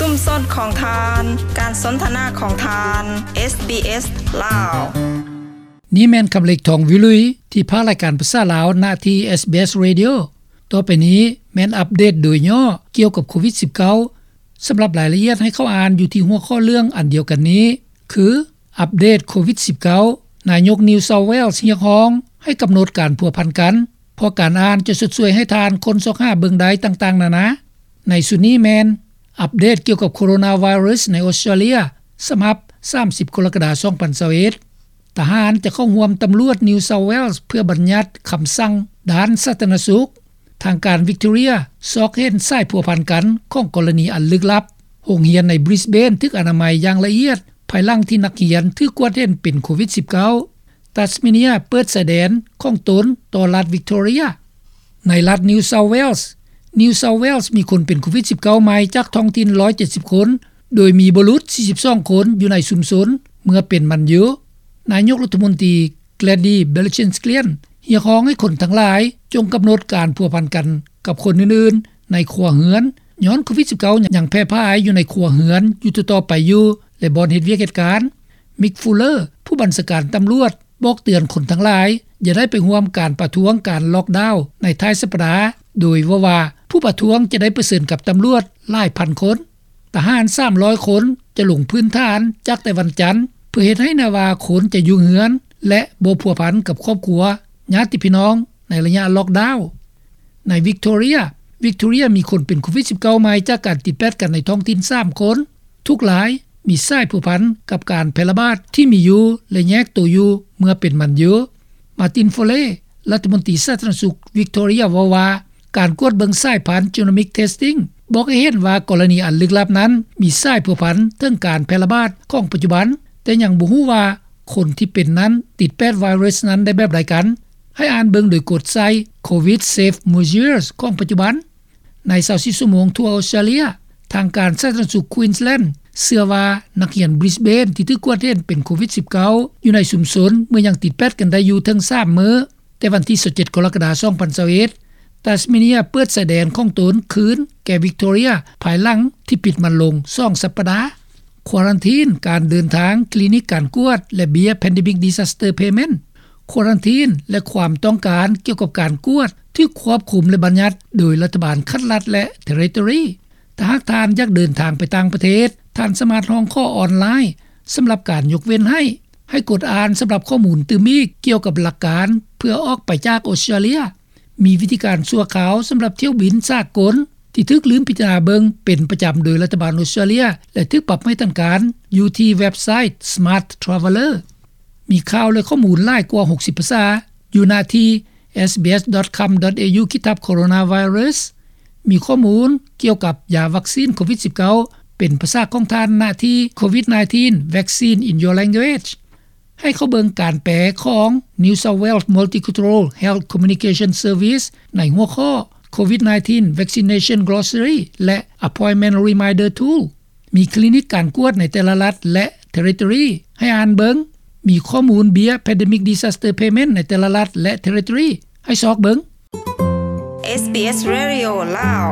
ຊຸມຊົນຂອງທ່ານ, ການສົນທະນາຂອງທ່ານ, ເອສບີເອສ ລາວ. ນີ້ແມ່ນຄຳເລັກ ທອງວິລຸຍ ທີ່ພາກລາຍການພາສາລາວ ນະທີ່ ເອສບີເອສ Radio. ຕໍ່ໄປນີ້ແມ່ນອັບເດດໂດຍຫຍໍ້ກ່ຽວກັບໂຄວິດສິບເກົ້າ. ສຳລັບລາຍລະອຽດໃຫ້ເຂົ້າອ່ານຢູ່ທີ່ຫົວຂໍ້ເລື່ອງອັນດຽວກັນນີ້ ຄື ອັບເດດໂຄວິດສິບເກົ້າ, ນາຍົກ New South Wales ຮຽກຮ້ອງໃຫ້ກຳນົດການພົວພັນກັນ, ເພາະການອ່ານຈະຊົດຊ່ວຍໃຫ້ທ່ານຄົ້ນຊອກຫາເບິ່ງໄດ້ຕ່າງໆນານາ. ໃນຊຸດນີ້ແມ່ນ ອັບເດດກ່ຽວກັບໂຄໂຣນາໄວຣັສໃນອົດສະຕຣາເລຍ ສະບັບສາມສິບ ກໍລະກະດາ ສອງພັນຊາວເອັດ. ທະຫານຈະເຂົ້າຮ່ວມຕຳຫຼວດ New South Wales ເພື່ອບັນຍັດຄຳສັ່ງດ້ານສາທາລະນະສຸກ. ທາງການ Victoria ຊອກເຫັນສາຍພົວພັນກັນຂອງກໍລະນີອັນລຶກລັບ. ໂຮງຮຽນໃນ Brisbane ຖືກອະນາໄມຢ່າງລະອຽດ ພາຍຫຼັງທີ່ນັກຮຽນຖືກກວດເຫັນເປັນໂຄວິດສິບເກົ້າ. Tasmania ເປີດຊາຍແດນຂອງຕົນຕໍ່ລັດ Victoria. ໃນລັດ New South Wales, New South Wales ມີຄົນເປັນໂຄວິດສິບເກົ້າໃໝ່ຈາກທ້ອງຖິ່ນຮ້ອຍເຈັດສິບຄົນ, ໂດຍມີບໍ່ຫຼຸດສີ່ສິບສອງຄົນຢູ່ໃນຊຸມຊົນເມື່ອເປັນມັນຢູ່. ນາຍົກລັດຖະມົນຕີ Gladys Berejiklian ຮຽກຮ້ອງໃຫ້ຄົນທັງຫຼາຍຈົ່ງກຳນົດການພົວພັນກັນກັບຄົນອື່ນໆໃນຄົວເຮືອນ, ຍ້ອນໂຄວິດສິບເກົ້າຍັງແຜ່ຜາຍຢູ່ໃນຄົວເຮືອນຢູ່ຕໍ່ໆໄປຢູ່ ແລະ ບ່ອນເຮັດວຽກເຮັດການ. Mick Fuller ຜູ້ບັນຊາການຕຳຫຼວດ ບອກເຕືອນຄົນທັງຫຼາຍຢ່າໄດ້ໄປຮ່ວມການປະທ້ວງການລັອກດາວໃນທ້າຍສັບປະດາ, ໂດຍເວົ້າວ່າຜູ້ປະທ້ວງຈະໄດ້ປະເຊີນກັບຕຳຫຼວດຫຼາຍພັນຄົນ. ທະຫານສາມຮ້ອຍຄົນຈະລົງພື້ນຖານຈາກແຕ່ວັນຈັນ ເພື່ອເຮັດໃຫ້ແນ່ວ່າຄົນຈະຢູ່ເຮືອນ ແລະ ບໍ່ພົວພັນກັບຄອບຄົວ, ຍາດຕິພີ່ນ້ອງໃນໄລຍະລັອກດາວ. ໃນ Victoria, Victoria ມີຄົນເປັນໂຄວິດສິບເກົ້າໃໝ່ຈາກການຕິດແປດກັນໃນທ້ອງຖິ່ນສາມຄົນ. ທຸກລາຍມີສາຍພົວພັນກັບການແຜ່ລະບາດທີ່ມີຢູ່ ແລະ ແຍກໂຕຢູ່ເມື່ອເປັນມັນຢູ່. Martin Foley ລັດຖະມົນຕີສາທາລະນະສຸກ Victoria ເວົ້າວ່າ ການກວດເບິ່ງສາຍພັນ Genomic Testing ບອກໃຫ້ເຫັນວ່າກໍລະນີອັນລຶກລັບນັ້ນມີສາຍພົວພັນເຖິງການແຜ່ລະບາດຂອງປັດຈຸບັນ, ແຕ່ຍັງບໍ່ຮູ້ວ່າຄົນທີ່ເປັນນັ້ນຕິດແປດໄວຣັສນັ້ນໄດ້ແບບໃດກັນ. ໃຫ້ອ່ານເບິ່ງໂດຍກົດໃສ່ Covid Safe Measures ຂອງປັດຈຸບັນ. ໃນຊາວສີ່ຊົ່ວໂມງທົ່ວອົດສະຕຣາເລຍ, ທາງການສາທາລະນະສຸກ Queensland ເຊື່ອວ່ານັກຮຽນ Brisbane ທີ່ຖືກກວດເຫັນເປັນໂຄວິດສິບເກົ້າຢູ່ໃນຊຸມຊົນເມື່ອຍັງຕິດແປດກັນໄດ້ຢູ່ເຖິງສາມມື້, ແຕ່ວັນທີຊາວເຈັດ ກໍລະກະດາ ສອງພັນຊາວເອັດ, Tasmania ເປີດຊາຍແດນຂອງຕົນຄືນແກ່ Victoria ພາຍຫຼັງທີ່ປິດມັນລົງສອງສັບປະດາ. ຄວາຣັນທີນການເດີນທາງ, ຄລີນິກການກວດ ແລະ ເບ້ຍ Pandemic Disaster Payment. ຄວາຣັນທີນ ແລະ ຄວາມຕ້ອງການກ່ຽວກັບການກວດຖືກຄວບຄຸມ ແລະ ບັນຍັດໂດຍລັດຖະບານຂັ້ນລັດ ແລະ Territory. ຖ້າຫາກທ່ານຢາກເດີນທາງໄປຕ່າງປະເທດ, ທ່ານສາມາດຮ້ອງຂໍອອນລາຍສຳລັບການຍົກເວັ້ນໃຫ້. ໃຫ້ກົດອ່ານສຳລັບຂໍ້ມູນຕື່ມອີກກ່ຽວກັບຫຼັກການເພື່ອອອກໄປຈາກອົດສະຕຣາເລຍ. ມີວິທີການຊົ່ວຄາວສຳລັບຖ້ຽວບິນສາກົນທີ່ຖືກລືມພິຈາລະນາເບິ່ງເປັນປະຈຳໂດຍລັດຖະບານອົດສະຕຣາເລຍ ແລະ ຖືກປັບໃໝທາງການຢູ່ທີ່ເວັບໄຊ Smart Traveller. ມີຂ່າວ ແລະ ຂໍ້ມູນຫຼາຍກວ່າຫົກສິບພາສາຢູ່ນະທີ່ sbs.com.au/coronavirus. ມີຂໍ້ມູນກ່ຽວກັບຢາວັກຊີນໂຄວິດສິບເກົ້າເປັນພາສາຂອງທ່ານນະທີ່ Covid nineteen Vaccine in Your Language. ໃຫ້ເຂົ້າເບິ່ງການແປຂອງ New South Wales Multicultural Health Communication Service ໃນຫົວຂໍ້ Covid nineteen Vaccination Glossary ແລະ Appointment Reminder Tool. ມີຄລີນິກການກວດໃນແຕ່ລະລັດ ແລະ Territory ໃຫ້ອ່ານເບິ່ງ. ມີຂໍ້ມູນເບ້ຍ Pandemic Disaster Payment ໃນແຕ່ລະລັດ ແລະ Territory ໃຫ້ຊອກເບິ່ງ. SBS Radio ລາວ.